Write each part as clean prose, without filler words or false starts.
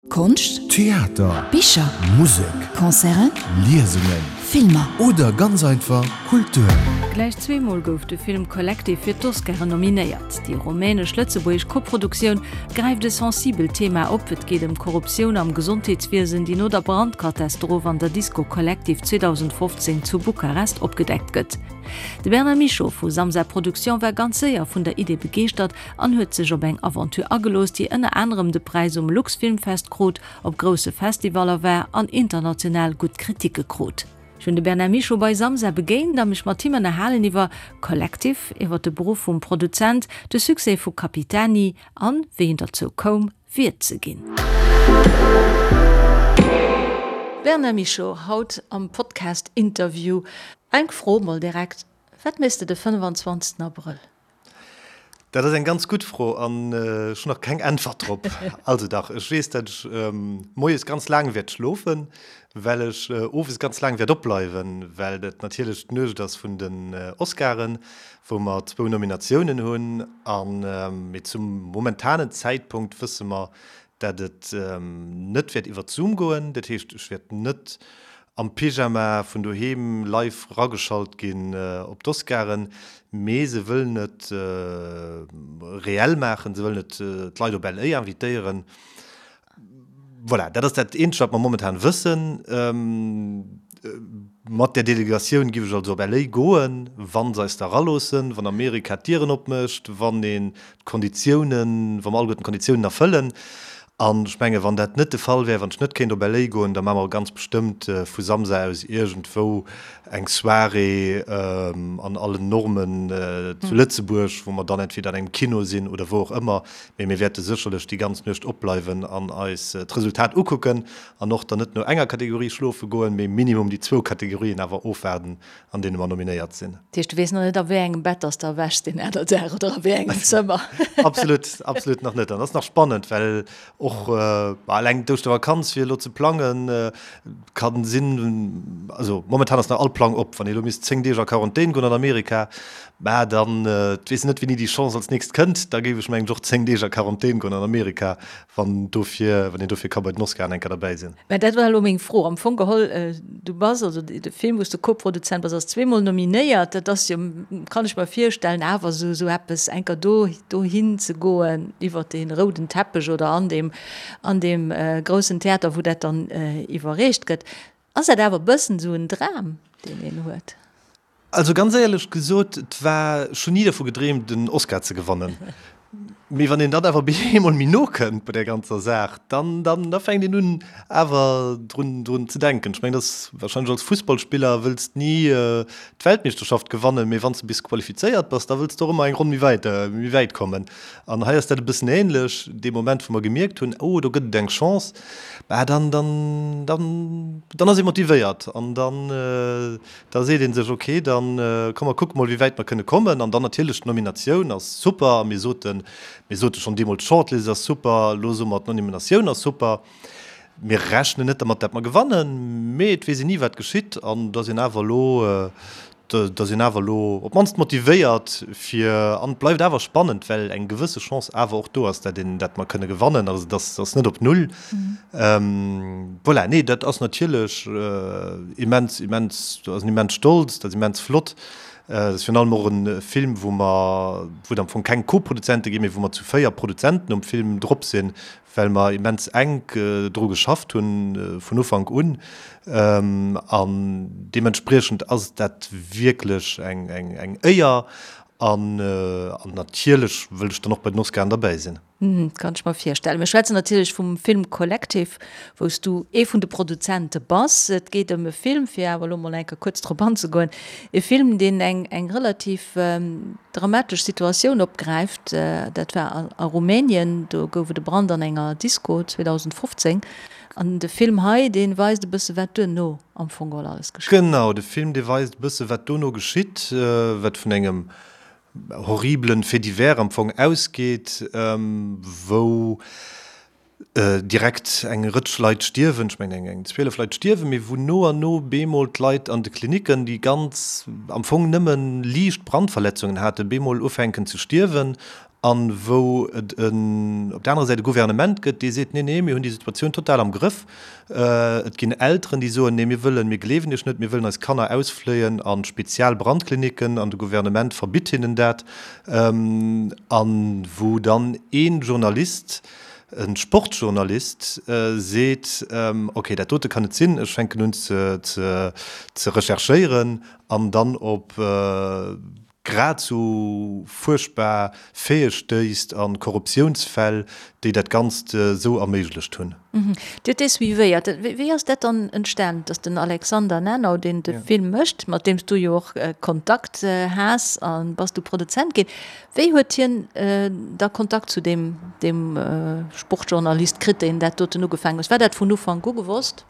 Konscht, Theater, Bicher, Musek, Concerten, Liesungen, Filmer. Oder ganz einfach Kultur. Gläich zweemol gouf de Film Collective fir d'Oscaren nominéiert. Déi rumänesch-lëtzebuergesch Koproduktioun gräift e sensibelt Thema op, Et geet ëm d'Korruptioun am Gesondheetswiesen, déi no der Brandkatastroph an der Disco Collective 2015 zu Bukarest opgedeckt gëtt. De Bernard Michaux vu Samsa Production war ganz séier vun der Idee begeeschtert an huet sech op eng Aventure agelooss, déi ënner anerem de Präis um Luxfilmfest krut, op grousse Festivaller war an international gutt Kritike krut. Ech hunn de Bernard Michaux bei Samsa begéint a mech mat him ënnerhalen iwwer Collective, iwwer de Beruff vum Produzent, de Succès vu Capitani an wéi en derzou koum, Wiert ze ginn. Bernard Michaux, haut am Podcast-Interview. Eng Fro mol direkt, Wat méchs de de 25 Abrëll? Dat ass eng ganz gutt Fro an ech hunn nach keng Äntwert drop. Also dach, ech weess, datt ech moies ganz laang wäert schlofen, well ech owes ganz laang wäert opbleiwen, well dat natierlech d'Nuecht ass vun den Oscaren, wou mer zwou Nominatiounen hunn. An, mee zum momentanen Zäitpunkt wësse mer, datt et net wäert iwwert Zoom goen. Dat heescht, ech wäert net am Pyjama vun doheem live rageschalt ginn op d'Oscaren, mee se wëllen et reell maachen, se wëllen et d'Leit op LA invitéieren. Voilà, dat ass dat eenzegt wat mer momentan wëssen. Mat där Delegatioun giff ech also op LA goen, wa se eis da raloossen, wann Amerika d'Dieren opmécht, wann een d'Konditiounen, wa mer alleguerten d'Konditiounen erfëllen. An ech mengen, wann dat net de Fall wär, wann ech net kéint op LA goen, da maache mer ganz bestëmmt vu Samsa aus iergendwou eng Soirée an allen Normen zu Lëtzebuerg, wou mer dann entweder an engem Kino sinn oder wou och ëmmer. Mee mir wäerte sécherlech déi ganz Nuecht opbleiwen an eis d'Resultat ukucken an och dann net no enger Kategorie schlofe goen, mee minimum déi zwou Kategorien awer ofwaarden, an deene mer nominéiert sinn. Dat heescht, du weess nach net, a wéi engem Bett dass de erwächs deen aner Dag oder a wéi engem Zëmmer? Absolut, absolut nach net. An dat ass nach spannend, well och eleng d'Ouschtervakanz fir elo ze plangen, ka sinn, also momentan ass nach all Plang op. Wann ee elo misst 10 Deeg a Quarantän goen an Amerika, mä dann, et weess een net, wéini déi Chance als nächst kënnt, da géif ech mengen ech och 10 Deeg a Quarantän goen an Amerika, wann dofir, wann een dofir ka bei den Oscaren eng Kéier derbäi sinn. Mä dat war elo meng Fro. Am Fong geholl, du bass, also de Film, wou s de Koproduzent bass, ass zweemol nominéiert. Dat ass jo, kann ech mer virstellen, awer esou esou eppes, eng Kéier do dohin ze goen, iwwer dee rouden Teppech oder an deem an deem groussen Theater, wou dat dann iwwerreecht gëtt. Ass dat awer e bëssen esou en Dram, deen een huet? Also ganz éierlech gesot, et war, ech hunn ni dervu gedreemt en Oscar ze gewannen. Mee wann een dann awer bemol méi no kënnt bei där ganzer Saach, dann, dann, da fänkt een un awer drun, drun ze denken. Ech mengen, dat ass warscheinlech als Fussballspiller wëlls ni d'Weltmeeschterschaft gewannen, mee wann s de bis qualifizéiert bass, da wëlls de och ëmmer eng Ronn méi wäit, méi wäit kommen. An hei ass dat e bëssen ähnlech. Dee Moment wou mer gemierkt hunn, oh do gëtt et eng Chance, bah dann, dann, dann, dann ass ee motivéiert an dann, Da seet ee sech, ok, da komm mer kucke mol, wéi wäit mer kënne kommen. An dann natierlech d'Nominatioun ass super. A mir soten, mir sote schonn deemools, d'Shortlist ass super, elo soe mer, d'Nominatioun ass super. Mir rechnen net dermat, dat mer gewannen, mee et weess een ni, wat geschitt. An da sinn awer elo, da sinn awer elo op d'mannst motivéiert fir, an et bleift awer spannend, well eng gewësse Chance awer och do ass, dat een, dat mer kënne gewannen. Also et ass net op Null. Voilà, nee, dat ass natierlech immens, immens, dat ass en immens Stolz, dat ass immens flott. Dat ass virun allem och e Film, wou mer, wou et am Fong keng Co-Produzente ginn, mee wou mer zu 4 Produzenten um Film drop sinn, well mer immens enk dru geschafft hunn vun Ufank un. An deementspriechend ass dat wierklech eng, eng, eng Éier. An natierlech wëll ech dann och bei den Oscaren derbäi sinn. Kann ech mer virstellen. Mir schwätzen natierlech vum Film Collective, wou s du ee vun de Produzente bass. Et geet ëm e Film, fir awer elo mol eng Kéier kuerz drop anzegoen, e Film, deen eng eng relativ dramatesch Situatioun opgräift. Dat war a Rumänien, do gouf et e Brand an enger Disco 2015. An de Film hei, dee weist e bësse wat duerno am Fong geholl alles geschitt. Genau, de Film, dee weist e bësse wat dono geschitt, wat vun engem horribelen Fait divers am Fong ausgeet, wou direkt eng Rëtsch Leit stierwen, ech mengen eng 12 Leit stierwen, mee wou no an no bemol d'Leit an de Klinicken, déi ganz am Fong nëmme liicht Brandverletzungen haten, bemol ufänken ze stierwen. An wou et en, op der anerer Säit e Gouvernement gëtt, dee seet, Nee, nee, mir hunn déi Situatioun total am Grëff. Et ginn Elteren, déi soen, Nee, mir wëllen, mir gleewen Iech net, mir wëllen eis Kanner ausfléien a spezial Brandkliniken, an de Gouvernement verbitt hinnen dat. A wou dann ee Journalist, e Sportjournalist seet, Okay, dat dote kann net sinn, ech fänken un ze recherchéieren an dann op grad sou fuerchtbar Faite stéisst a Korruptiounsfäll, déi dat Ganzt sou erméiglecht hunn. Dir hutt dee suivéiert. Wéi ass dat dann entstan, datt den Alexander Nanau, deen de Film mécht, mat deem s du jo och Kontakt has a bass du Produzent ginn, wéi huet hien da Kontakt zu deem Sportjournalist kritt, deen dat doten ugefaangen huet? War dat vun Ufank u gewosst?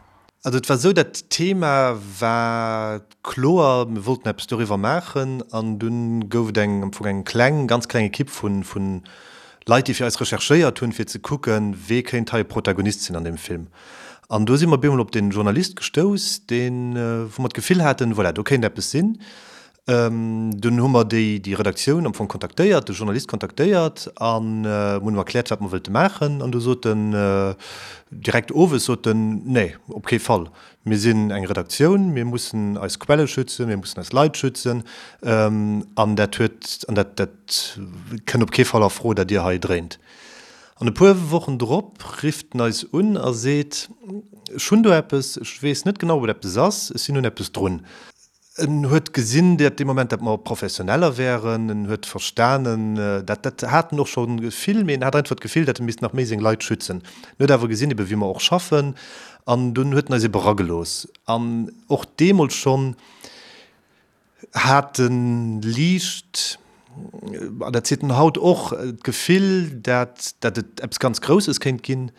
Also et war esou, dat Thema war kloer, mir wollten eppes doriwwer maachen an dunn gouf et eng, am Fong eng kleng, ganz kleng Ekipp vu vu Leit, déi fir eis recherchéiert hunn, fir ze kucken, wee kéint hei e Protagonist sinn an deem Film. An do si mer op eemol op dee Journalist gestouss, deen, wou mer d'Gefill haten, voilà, do kéint eppes sinn. Dunn hu mer déi déi Redaktioun am Fong kontaktéiert, de Journalist kontaktéiert an hunn em erkläert, wat mer wëllte maachen. An du sot en direkt owes, sot en, Nee, op kee Fall. Mir sinn eng Redaktioun, mir mussen eis Quelle schützen, mir mussen eis Leit schützen. An dat huet, an dat, dat kënn op kee Fall a Fro, dat Dir hei dréint. An e puer Wochen drop rifft en eis un a seet, Ech hunn do eppes, ech weess net genau, ob et eppes ass, ech sinn un eppes drun. En huet gesinn, dat dee Moment, dat mer Professioneller wären. En huet verstanen, dat, dat hat en och scho vill, mee en hat einfach d'Gefill, dat e misst nach méi seng Leit schützen. En huet awer gesinn, ebe wéi mer och schaffen, an dunn huet en eis ebe eragelooss. An och deemools schonn hat en liicht, an dat seet en haut och, d'Gefill, dat, dat et eppes ganz Grousses kéint ginn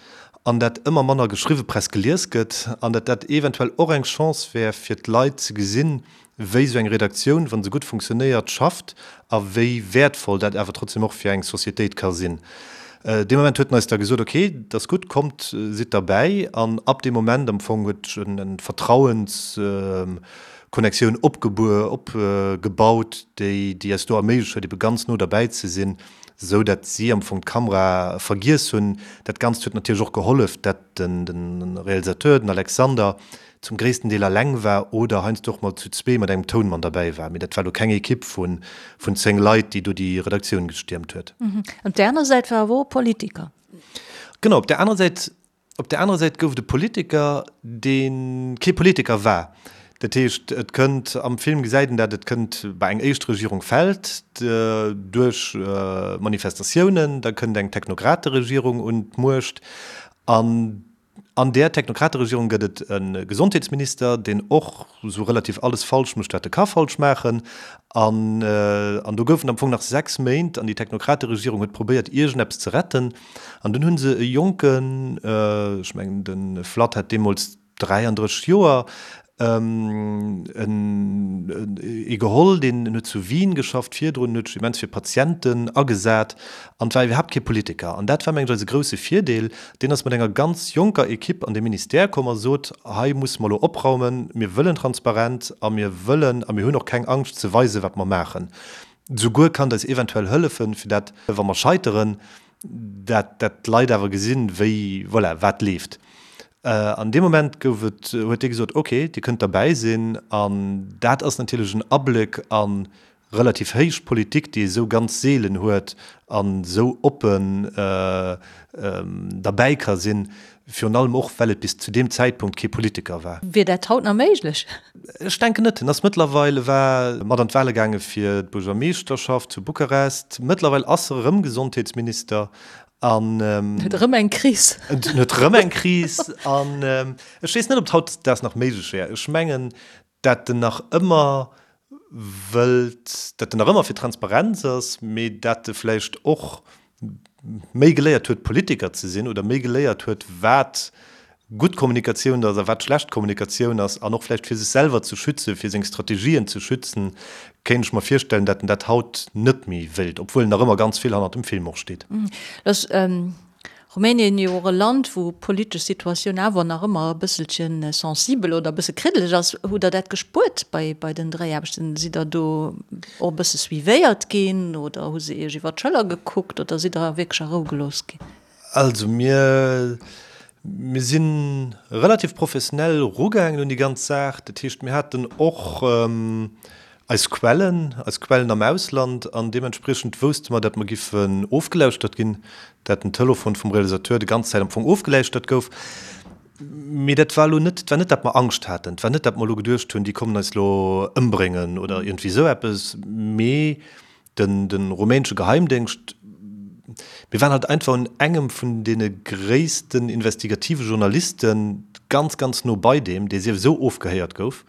an dat ëmmer manner geschriwwe Press gelies gëtt an dat dat eventuell och eng Chance wär fir d'Leit ze gesinn, wéi esou eng Redaktioun, wa se gutt funktionéiert, schafft a wéi wäertvoll dat awer trotzdem och fir eng Societéit ka sinn. Dee Moment huet en eis da gesot, ok, dat ass gutt, kommt, sidd derbäi. An ab deem Moment am Fong huet sech en Vertrauens, Connectioun opgebaut, déi déi eis do erméiglecht huet, ebe ganz no derbäi ze sinn, esou dat si am Fong d'Kamera vergiess hunn. Dat Ganzt huet natierlech och gehollef, dat den de Realisateur, den Alexander, zum gréissten Deel alleng war oder heiansdo och mol zu zwee mat engem Tounmann derbäi war. Mee dat war elo keng Ekipp vun vun 10 Leit, déi do déi Redaktioun gestiermt huet. Op där aner Säit war awer och e Politiker. Genau, op där anerer Säit Op där anerer Säit gouf et e Politiker, dee kee Politiker war. Dat heescht, et kënnt, am Film gesäit een dat, et kënnt bei eng éischt Regierung fält duerch Manifestatiounen, da kënnt eng Technokrateregierung un d'Muecht an an där Technokrateregierung gëtt et e Gesondheetsminister, deen och esou relativ alles falsch mécht, wat e ka falsch maachen. An an do goufen am Fong nach 6 Méint an déi Technokrateregierung huet probéiert, iergendeppes ze retten. An dunn hu se e jonken, ech mengen de Vlad hat deemools 33 Joer, ee geholl, deen huet zu Wien geschafft virdrun, huet sech immens fir Patienten agesat an war iwwerhaapt kee Politiker. An dat war mengen ech eise grousse Virdeel. Deen ass mat enger ganz jonker Ekipp an de Ministère komm a sot, hei musse mer elo opraumen, mir wëllen Transparenz a mir wëllen a mir hunn och keng Angscht ze weisen, wat mer maachen. Souguer kann et eis eventuell hëllefen, fir dat, wa mer scheiteren, dat dat d'Leit awer gesinn, wéi, voilà, wat leeft. An deem Moment gouf et, huet dee gesot, ok, Dir kënnt derbäi sinn. An dat ass natierlech en Abléck a relativ héich Politik, déi ee sou ganz seelen huet an esou oppen derbäi ka sinn, virun allem och, well et bis zu deem Zäitpunkt kee Politiker war. Wier dat haut nach méiglech? Ech denken net. En ass mëttlerweil, e war mat an d'Wale gaange fir d'Buergermeeschterschaft zu Bukarest. Mëttlerweil ass e rëm Gesondheetsminister an. Huet erëm eng Kris. En huet erëm eng Kris an ech weess net, ob et hautdesdaags nach méiglech wär. Ech mengen, dat en nach ëmmer wëllt, dat en nach ëmmer fir Transparenz ass, mee dat e vläicht och méi geléiert huet, Politiker ze sinn oder méi geléiert huet, wat gutt Kommunikatioun ass a wat schlecht Kommunikatioun ass an och vläicht fir sech selwer ze schützen, fir seng Strategien ze schützen, kéint ech mer virstellen, dat en dat haut net méi wéilt, obwuel en nach ëmmer ganz vill hannert dem Film och steet. Lass. Rumänien jo och e Land, wou d'politesch Situatioun awer nach ëmmer e bësselche sensibel oder e bësse kriddeleg ass. Hutt Der dat gespuert bei, bei den Dréiaarbechten? Sidd Der do och e bësse suivéiert ginn oder hu se Iech iwwer d'Schëller gekuckt oder sidd Der wierklech a Rou gelooss ginn? Also mir, mir si relativ professionell erugaangen un déi ganz Saach. Dat heescht, mir haten och Eis Quellen, eis Quellen am Ausland, an deementspriechend wousste mer, dat mer giffen ofgelauschtert ginn, dat den Telefon vum Realisateur déi ganz Zäit am Fong ofgeläuschtert gouf. Mee dat war elo net, et war net, dat mer Angscht haten, et war net, dat mer elo geduecht hunn, déi kommen eis elo ëmbréngen oder iergendwéi esou eppes, mee den, de rumänesche Geheimdéngscht, mir waren halt einfach un engem vun deene gréissten investigative Journalisten ganz, ganz no bei deem, dee sief esou ofgehéiert gouf,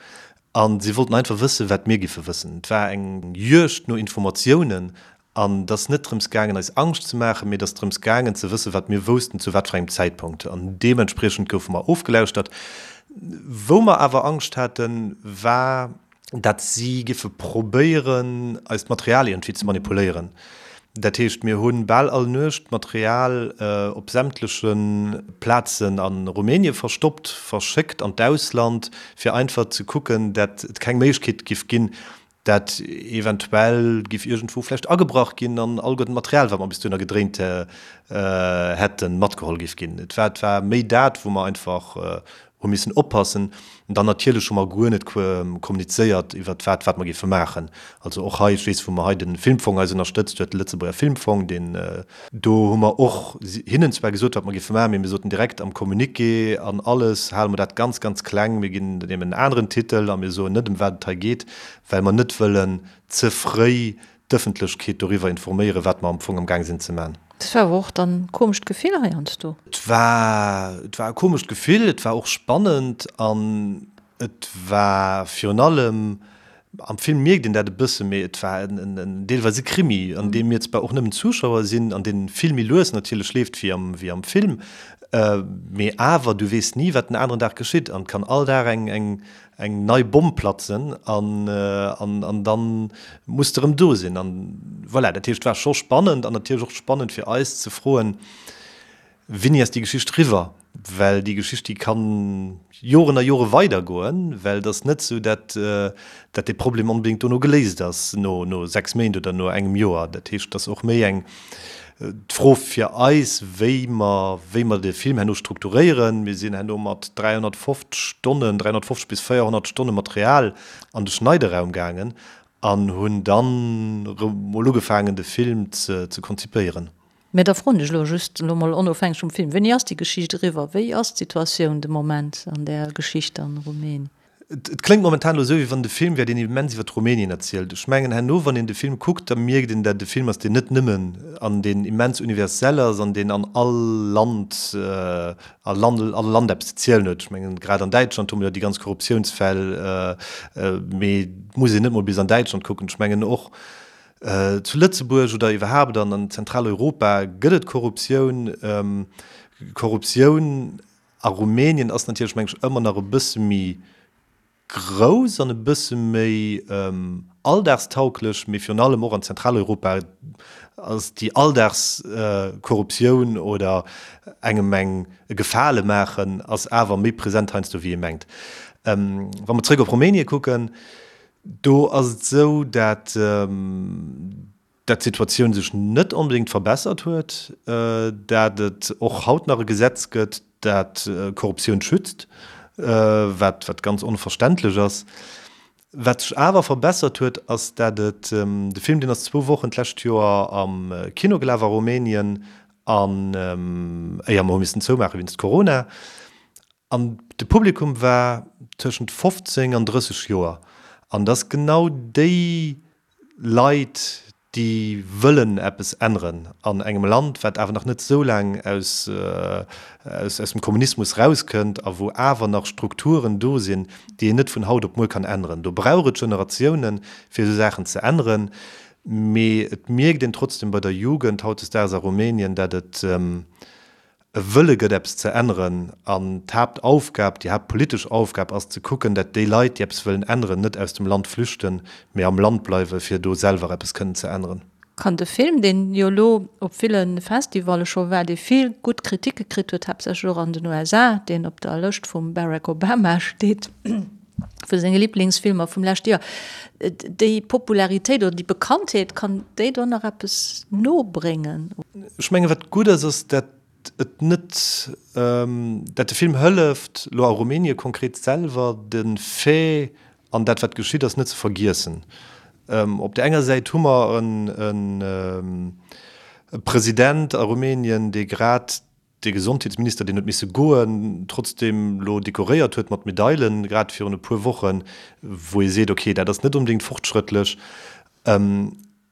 A si wollten einfach wëssen, wat mir giffe wëssen. Et war eng Juegd no Informatiounen. An et ass net drëms gaangen, eis Angscht ze maachen, mee et ass drëms gaangen, ze wëssen, wat mir woussten, zu wat fir engem Zäitpunkt. An deementspriechend goufe mer ofgelauschtert. Wou mer awer Angscht haten, war, dat si giffe probéieren, eist Material iergendwéi ze manipuléieren. Dat heescht, mir hu bal all Nuecht Material op sämtleche Plazen a Rumänie verstoppt, verschéckt an d'Ausland, fir einfach ze kucken, dat et keng Méiglechkeet giff ginn, dat eventuell giff iergendwou vläicht agebrach ginn an alleguerten d'Material, wat mer bis dohinner gedréint hätten, matgeholl giff ginn. Et war, et war méi dat, wou mer einfach hu missen oppassen. An dann natierlech hu mer guer net kommunizéiert iwwert wat, wat mer géife maachen. Also och hei, ech weess, wou mer hei de Filmfong eis ënnerstëtzt huet, de Lëtzebuerger Filmfong, deen, do hu mer och hinnen zwar gesot, wat mer géife maachen, mee mir soten direkt am Communiqué an alles hale mer dat ganz, ganz kleng, mir ginn deem en aneren Titel a mir soen net, ëm wat et hei geet, well mer net wëllen ze fréi d'Ëffentlechkeet doriwwer informéieren, wat mer am Fong am Gaang sinn ze man. Dat war awer och dann e komescht Gefill heiansdo. Et war, et war e komescht Gefill, et war och spannend an et war virun allem, am Film mierkt een dat e bësse, mee et war en, en deelweis e Krimi, an deem mir zwar och nëmmen Zuschauer sinn, an dee vill méi lues natierlech leeft wéi am, wéi am Film, mee awer du weess ni, wat den aneren Dag geschitt an et kann all Dag eng, eng, eng nei Bomm platzen an an dann muss de rëm do sinn an voilà. Dat heescht, et war scho spannend an natierlech och spannend fir eis ze froen, Wéini ass déi Geschicht riwwer? Well déi Geschicht, déi kann Joren a Jore weidergoen, well et ass net esou, dat dat dee Problem onbedéngt dono geléist ass, no no 6 Méint oder no engem Joer. Dat heescht, et ass och méi eng D'Fro fir eis, wéi mer, wéi mer de Film herno strukturéieren, mir sinn herno mat 350 Stonnen, 350 bis 400 Stonne Material an de Schneideraum gaangen an hunn dann erëm mol ugefaangen, de Film ze, ze konzipéieren. Mä da froen ech elo just, elo mol onofhängeg vum Film, Wéini ass déi Geschicht eriwwer? Wéi ass d'Situatioun de Moment an där Geschicht an Rumänien? Et kléngt momentan elo esou, wéi wann et e Film wär, deen immens iwwer Rumänien erzielt. Ech mengen, herno, wann een de Film kuckt, da mierkt een, dat et e Film ass, deen net nëmmen an deen immens universell ass an deen an all Land, a Land, all Land eppes ze zielen huet. Ech mengen, grad an Däitschland hu mer jo déi ganz Korruptiounsfäll, mee et muss een net mol bis an Däitschland kucken. Ech mengen, och zu Lëtzebuerg oder iwwerhaapt an Zentraleuropa gëtt et Korruptioun. Korruptioun A Rumänien ass natierlech, meng ech, ëmmer nach e bësse méi grouss an e bësse méi alldagstauglech, mee virun allem och an Zentraleuropa ass déi Alldagskorruptioun oder engem eng e Gefale maachen ass awer méi present heiansdo wéi ee mengt. Wa mer zréck op Rumänie kucken, do ass et esou, dat dat d'Situatioun sech net onbedéngt verbessert huet, dat et och haut nach e Gesetz gëtt, dat Korruptioun schützt, wat wat ganz onverständlech ass. Wat sech awer verbessert huet, ass dat et, de Film deen ass zwou Wochen d'lescht Joer am Kino gelaf a Rumänien, an éier mer hu missen zoumaache wéinst Corona, an de Publikum war tëschent 15 an 30 Joer, an et ass genau déi Leit, déi wëllen eppes änneren an engem Land, wat awer nach net esou laang aus, aus dem Kommunismus rauskënnt a wou awer nach Strukturen do sinn, déi een net vun haut op muer kann änneren. Do brauch et Generatiounen, fir esou Saachen ze änneren. Mee et mierkt een trotzdem bei der Jugend hautdesdaags a Rumänien, dat et, e Wëlle gëtt eppes ze änneren an d'Haaptaufgab, déi haaptpolitesch Aufgab ass ze kucken, dat déi Leit, déi eppes wëllen änneren, net aus dem Land flüchten, mee am Land bleiwen, fir do selwer eppes kënnen ze änneren. Kann de Film, deen jo elo op ville Festivalle scho war, dee vill gutt Kritike kritt huet, haaptsächlech och an den USA, deen op der Lëscht vum Barack Obama steet vu senge Liblingsfilmer vum leschte Joer, déi Popularitéit oder déi Bekanntheet, kann déi do nach eppes nobréngen? Ech mengen, wat gutt ass, ass, dat et net, dat de Film hëlleft, elo a Rumänien konkret selwer, de Fait an dat, wat geschitt ass, net ze vergiessen. Op där enger Säit hu mer e President a Rumänien, dee grad de Gesondheetsminister, deen huet misse goen, trotzdeem elo dekoréiert huet mat Medailen, grad virun e puer Wochen, wou ee seet, okay, dat ass net onbedéngt fortschrëttlech.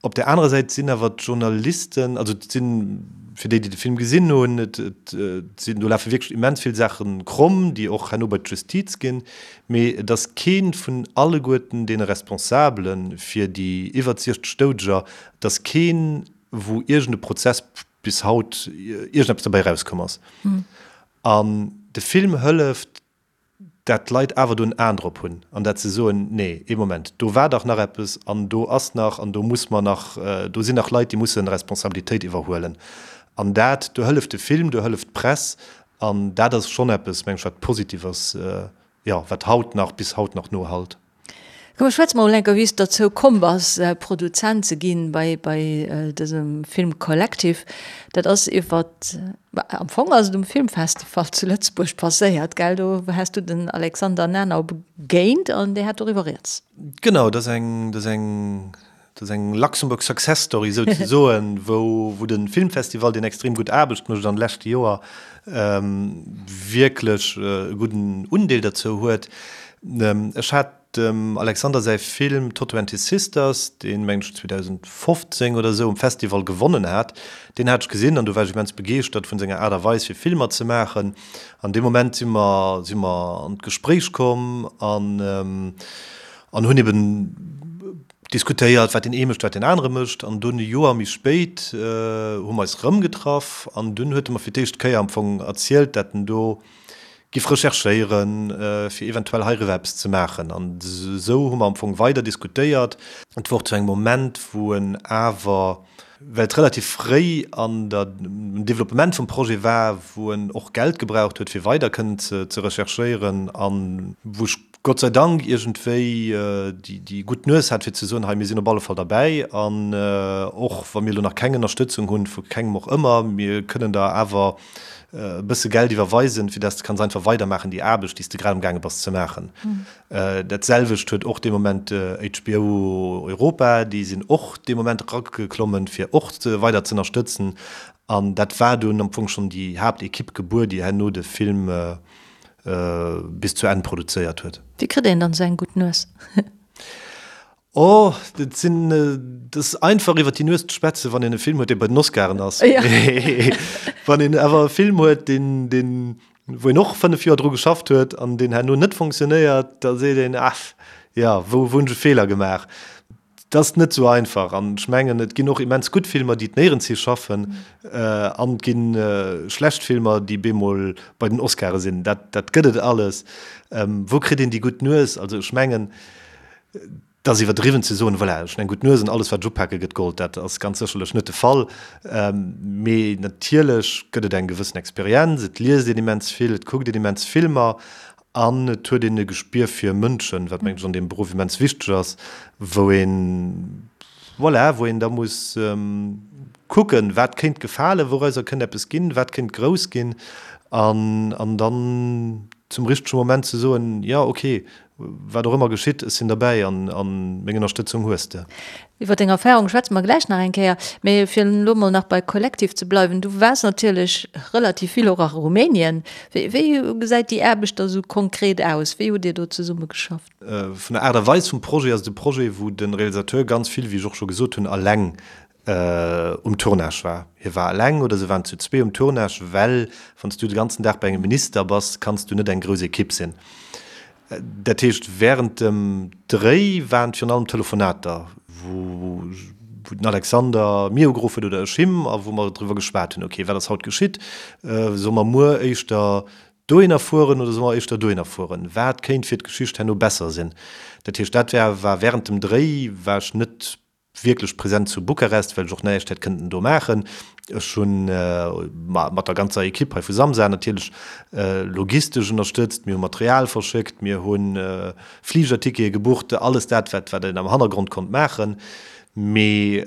Op där anerer Säit sinn awer d'Journalisten, also et sinn, fir déi, déi de Film gesinn hunn, et sinn, do lafe wierklech immens vill Saache kromm, déi och herno bei d'Justiz ginn, mee et ass kee vun alleguerten deene Responsabele fir déi iwwer 60 Doudeger, et ass keen, wou iergend e Prozess bis haut iergendeppes derbäi erauskomm ass. An de Film hëlleft, dat d'Leit awer do en Aen drop hunn an dat se soen, nee, ee Moment, do war dach nach eppes an do ass nach an do muss mer nach, do sinn nach Leit, déi musse Responsabilitéit iwwerhuelen. An dat, do hëlleft de Film, do hëlleft d'Press an dat ass schonn eppes, meng ech, wat positiv ass, jo, wat haut nach, bis haut nach nohallt. Komm, schwätz mer mol enker, wéi s de derzou komm bass, Produzent ze ginn bei, bei dësem Film Collective. Dat ass iwwer, am Fong ass et um Filmfestival zu Lëtzebuerg passéiert, gell? Do has du den Alexander Nanau begéint an dee hat doriwwer rieds. Genau, dat ass eng, dat ass eng, dat ass eng Luxembourg Success Story souzesoen, wou, wou de Filmfestival, deen extrem gutt Aarbecht mécht an de leschte Joer, wierklech e gudden Undeel derzou huet. Ech hat dem Alexander säi Film Toto and his Sisters, deen, mengen ech, 2015 oder esou um Festival gewonnen hat, deen hat ech gesinn an do war ech immens begeeschtert vun senger Aart a Weis fir Filmer ze maachen. An dee Moment si mer, si mer an d'Gespréich komm an an hunn eben diskutéiert, wat deen ee mécht, wat deen anere mécht. An dunn e Joer méi spéit hu mer eis erëm getraff an dunn huet e mer fir d'éischt Kéier am Fong erzielt, dat en do giff recherchéieren, fir eventuell heiriwwer eppes ze maachen. An esou hu mer am Fong weider diskutéiert. Et wor zu engem Moment, wou en awer, well et relativ fréi an der, am Developpement vum Projet war, wou en och Geld gebraucht huet, fir weider kënnen ze recherchéieren an wou ech Gott sei Dank iergendwéi déi gutt Nues hat, fir ze soen, hei, mir sinn op alle Fall derbäi an och wa mir elo nach keng Ënnerstëtzung hunn, vu kengem och ëmmer, mir kënnen der awer e bësse Geld iwwerweisen, fir dass de kanns einfach weidermaachen déi Aarbecht, déi s de grad amgaange bass ze maachen. Dat selwecht huet och dee Moment HBO Europa, déi sinn och dee Moment erageklommen, fir och weider ze ënnerstëtzen. An dat war dunn am Fong schonn déi Haaptekipp gebuer, déi herno de Film bis zu Enn produzéiert huet. Wéi kritt een dann esou eng gutt Nues? Oh, dat sinn, dat ass einfach iwwer déi Nues ze schwätzen, wann een e Film huet, dee bei den Oscaren ass. Wann een awer e Film huet, deen, deen, wou een och 5 Joer dru geschafft huet an deen herno net funktionéiert, da seet een, Ach jo, wou, wou hunn ech e Feeler gemaach? Et ass net esou einfach an ech mengen, et ginn och immens gutt Filmer, déi et néierens hi schaffen an et gi schlecht Filmer, déi bemol bei den Oscare sinn. Dat, dat gëtt et alles. Wou kritt een déi gutt Nues? Also ech mengen, et ass iwwerdriwwen ze soen, voilà, ech hunn eng gutt Nues an alles wat ech upake gëtt Gold. Dat ass ganz sécherlech net de Fall. Mee natierlech gëtt et eng gewëssen Experienz, et liest een immens vill, et kuckt een immens Filmer An et huet een e Gespier fir Mënschen, wat mengen ech an deem Beruff immens wichteg ass, wou een, voilà, wou een da muss kucken, wat kéint gefalen, wourauser kënnt eppes ginn, wat kéint grouss ginn an, an dann zum richtege Moment ze soen, jo, okay, wat och ëmmer geschitt, ech sinn derbäi an, an meng Ënnerstëtzung hues de. Iwwer deng Erfahrung schwätze mer gläich nach eng Kéier. Mee fir elo mol nach bei Collective ze bleiwen, du waars natierlech relativ vill och a Rumänien. Wéi, wéi gesäit déi Aarbecht da sou konkret aus? Wéi hutt Dir do zesumme geschafft? Vun der Aart a Weis vum Projet ass et e Projet, wou de Realisateur ganz vill, wéi ech och scho gesot hunn, eleng um Tournage war. Hie war eleng oder se waren zu zwee um Tournage, well wann s du de ganzen Dag bei engem Minister bass, kanns du net eng grouss Ekipp sinn. Dat heescht, wärend dem Dréi waren et virun allem Telefonater, wou den Alexander mir ugeruff huet oder ech him a wou mer driwwer geschwat hunn, ok, wat ass haut geschitt, solle mer muer éischter dohinner fueren oder solle mer éischter dohinner fueren, wat kéint fir d'Geschicht herno besser sinn. Dat heescht, dat war wärend dem Dréi war ech net. wierklech present zu Bukarest, well ech och näischt hätt kënnten do maachen. Ech hunn mat der ganzer Ekipp hei vu Samsa natierlech logistesch ënnerstëtzt, mir hu Material verschéckt, mir hu Fligertickete gebucht, alles dat, wat wat een am Hannergrond konnt maachen. Mee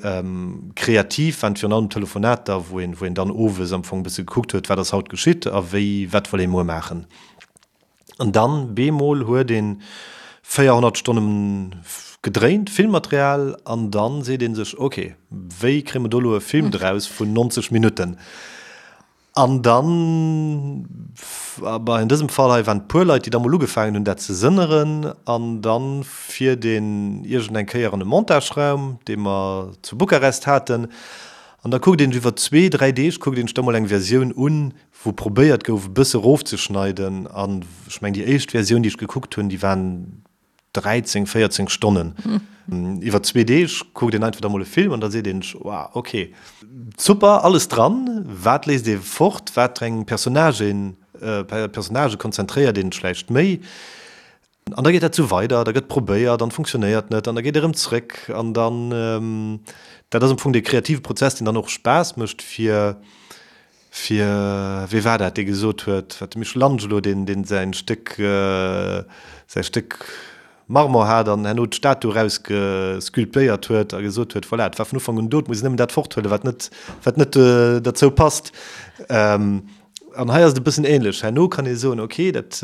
kreativ waren et virun allem Telefonater, wou een wou een dann owes am Fong e bësse gekuckt huet, wat ass haut geschitt a wéi wat wëll ee muer maachen. An dann bemol huet een 400 Stonnen gedréint, Filmmaterial, an dann seet een sech, ok, wéi kréie mer do elo e Film draus vun 90 Minutten? An dann, bah, in dësem Fall hei waren et puer Leit, déi da mol ugefaangen hunn dat ze sënneren, an dann fiert een iergend eng Kéier an e Montageraum, dee mer zu Bukarest haten, an da kuckt een sech iwwer zwee, dräi Deeg kuckt een sech da mol eng Versioun un, wou probéiert gouf e bësse rofzeschneiden an ech mengen déi éischt Versioun déi ech gekuckt hunn, déi waren 13, 14 Stonnen. Iwwer zwee Deeg kuckt een einfach da mol e Film an da seet een sech, wow, ok, super, alles dran, wat léisst ee fort, wat eng Personnagen, Personnagë konzentréiert een sech vläicht méi. An da geet dat esou weider, da gëtt probéiert an funktionéiert net an da geet erëm zréck an dann, dat ass am Fong dee kreative Prozess, deen dann och Spaass mécht fir, fir, wee war dat, dee gesot huet, wat de Michelangelo, deen, deen säin Stéck, säi Stéck Marmor hat an herno d'Statu erausgesculptéiert huet a gesot huet, voilà, et war vun Ufank un do, et muss een nëmmen dat forthuelen, wat net, wat net derzou passt. An hei ass et e bëssen ähnlech. Herno kann ee soen, okay, dat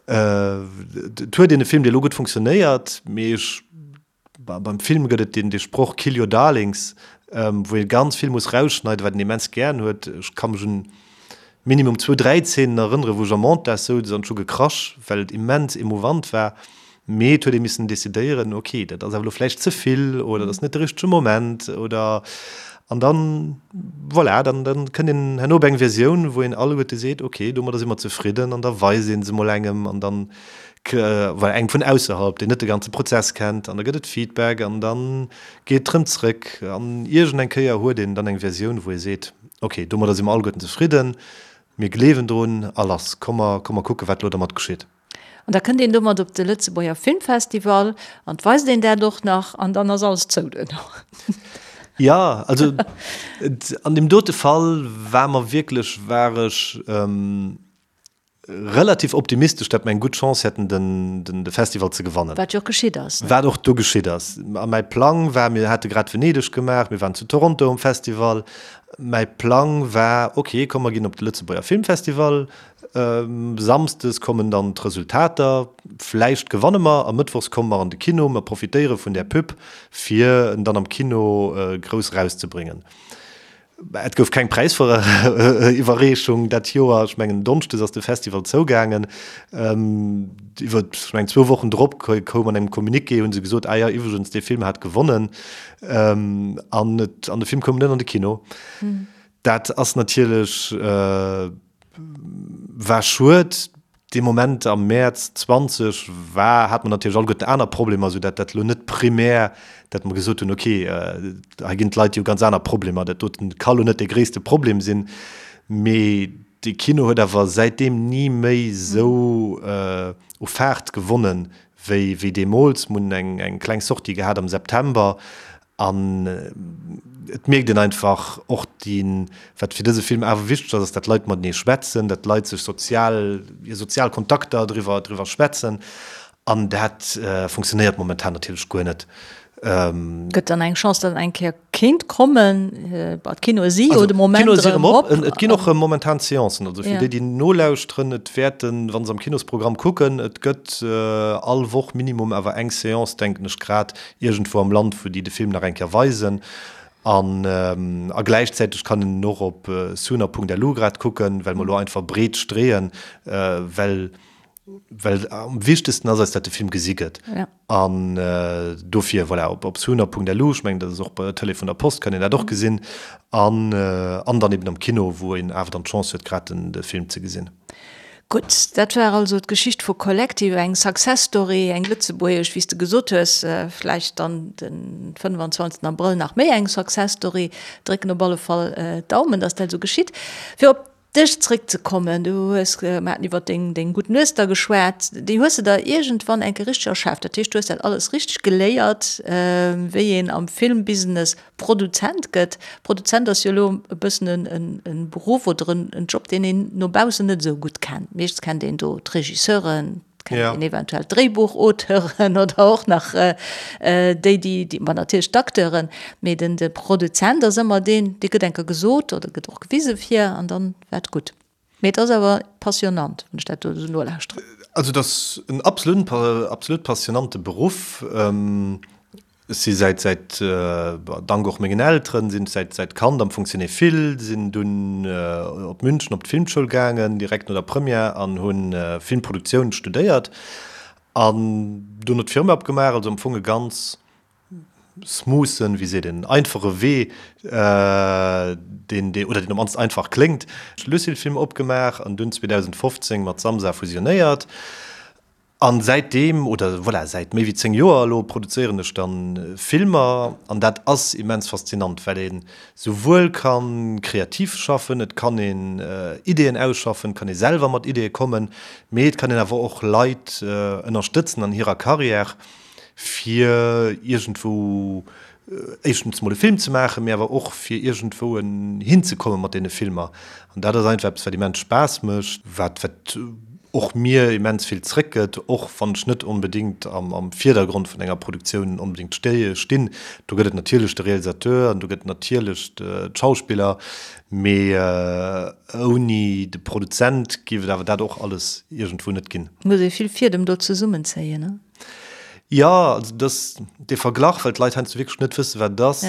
et huet een e Film, dee elo gutt funktionéiert, mee ech, beim Film gëtt et deen, dee Sproch Kill your darlings, wou ee ganz vill muss rausschneiden, wat een immens gären huet. Ech ka mech un minimum zwou, dräi Zeenen erënneren, wou ech am Montage souz an ech hu gekrasch, well et immens emouvant war. Mee et huet ee missen decidéieren, ok, dat ass awer elo vläicht ze vill oder dat ass net de richtege Moment oder an dann, voilà, dann, dann kënnt een herno op eng Versioun, wou een alleguerte seet, ok, domadder si mer zefridden an da weist ee se mol engem an dann, voilà, engem vun ausserhalb, deen net de ganze Prozess kennt an da gëtt et Feedback an da geet et rëm zrëck an iergend eng Kéier huet een dann eng Versioun, wou ee seet, ok, domadder si mer alleguerten zefridden, mir gleewen drun a lass, komm mer, komm mer kucken, wat elo dermat geschitt. An da kënnt een domat op de Lëtzebuerger Filmfestival an 't weist een dat och nach an dann ass alles zou duerno. Jo, also an deem dote Fall war mer wierklech, war ech relativ optimistesch, datt mer eng gutt Chance hätten, den de Festival ze gewannen. Wat jo och geschitt ass, ne? Wat och du geschitt ass. A mäi Plang war, mir hate grad Venedeg gemaach, mir waren zu Toronto um Festival, mäi Plang war, ok, komm mer ginn op de Lëtzebuerger Filmfestival, Samsdes kommen dann d'Resultater, vläicht gewanne mer, a mëttwochs komme mer an de Kino, mer profitéiere vun där Pub, fir en dann am Kino grouss erauszebréngen. Et gouf keng Präisiwwerreechung dat Joer, ech mengen Donschdes ass de Festival zougaangen. Iwwer, ech mengen zwou Wochen drop koum an engem Communiqué, hu se gesot, ah jo, iwwregens, dee Film hat gewonnen, an et, an de Film koum net an de Kino. Dat ass natierlech, war schued. Dee Moment am Mäerz 20 war, hat mer natierlech alleguerten aner Problemer, esou dat dat elo net primär, dat mer gesot hunn, okay, hei ginn d'Leit, déi hu ganz aner Problemer, dat doten ka lo net dee gréisste Problem sinn. Mee de Kino huet awer säitdeem ni méi esou u Faart gewonnen, wéi wéi deemools. Mer hunn eng eng kleng Sortie gehat am September An et mierkt een einfach och déi, wat fir dëse Film awer wichteg ass, ass, datt d'Leit matenee schwätzen, datt d'Leit sech sozial, hir sozial Kontakter driwwer, driwwer schwätzen. An dat funktionéiert momentan natierlech guer net. Gëtt dann eng Chance, datt en eng Kéier kéint kommen? Bon, d'Kinoe si jo de Moment erëm op. Et ginn och erëm momentan Seancen. Also fir déi, déi nolauschteren, et wäerten, wa se am Kinosprogramm kucken, et gëtt all Woch minimum awer eng Seance, denken ech grad, iergendwou am Land, wou déi de Film nach eng Kéier weisen. An a gläichzäiteg kann een en och op sooner.lu grad kucken, well mer elo einfach breet streeën, well well am wichtegsten ass eis, dat de Film gesi gëtt. An dofir, voilà, op op sooner.lu, ech mengen, dat ass och bei der Tëlee vun der Post, kann een dat och gesinn. An an dann eben am Kino, wou een awer dann d'Chance huet, grad den de Film ze gesinn. Gutt, dat war also d'Geschicht vu Collective, eng Success Story, eng lëtzebuergesch, wéi s de gesot hues, vläicht dann de 25 Abrëll nach méi eng Success Story. Drécken op alle Fall d'Daumen, dass dat esou geschitt. Fir op. dech zréckzekommen, du hues, mer haten iwwer deng, deng gutt Nues da geschwat, déi hues de der iergendwann eng Kéier richteg erschaaft. Dat heescht, du hues dat alles richteg geléiert, wéi een am Filmbusiness Produzent gëtt. Produzent ass jo elo e bëssen en, en Beruff oder en, en Job, deen een no baussen net esou gutt kennt. Meeschtens kennt een do d'Regisseuren, kennt een eventuell d'Dréibuchauteuren oder och nach déi, déi, ma natierlech d'Acteuren, mee den de Produzent ass ëmmer deen, dee gëtt eng Kéier gesot oder gëtt och gewise fir an dann war et gutt. Mee et ass awer passionnant, wann ech dat do esou nolauschteren. Also et ass en absolut, absolut passionante Beruff. Ech si säit, säit, dank och mengen Elteren, sinn ech säit, säit Kand am Fong Cinéphile, sinn dunn op München op d'Filmschoul gaangen, direkt no der Première an hu Filmproduktioun studéiert an dono d'Firma opgemaach. Also am Fong e ganz smoothen, wéi seet een, einfache Wee, deen, deen, oder deen op mannst einfach kléngt. Lucille Film opgemaach an dunn 2015 mat Samsa fusionéiert. An säitdeem, oder voilà, säit méi wéi 10 Joer elo, produzéieren ech dann Filmer. An dat ass immens faszinant, well een souwuel kann kreativ schaffen, et kann een Ideeën ausschaffen, et kann ee selwer mat Ideeë kommen, mee et kann een awer och Leit ënnerstëtzen an hirer Carrière, fir iergendwou éischtens mol e Film ze maachen, mee awer och fir iergendwou hinzekomme mat deene Filmer. An dat ass einfach eppes, wat immens Spaass mécht, wat wat och mir immens vill zréckgëtt, och wann ech net onbedéngt am am Virdergrond vun enger Produktioun onbedéngt stinn. Do gëtt et natierlech de Realisateur an do gëtt et natierlech d'Schauspiller, mee ouni de Produzent géif et awer dat och alles iergendwou net ginn. Muss ee vill Fiedem do zesummenzéien, ne? Jo, also dass dee Verglach, well d'Leit heiansdo wierklech net wëssen, wat et ass,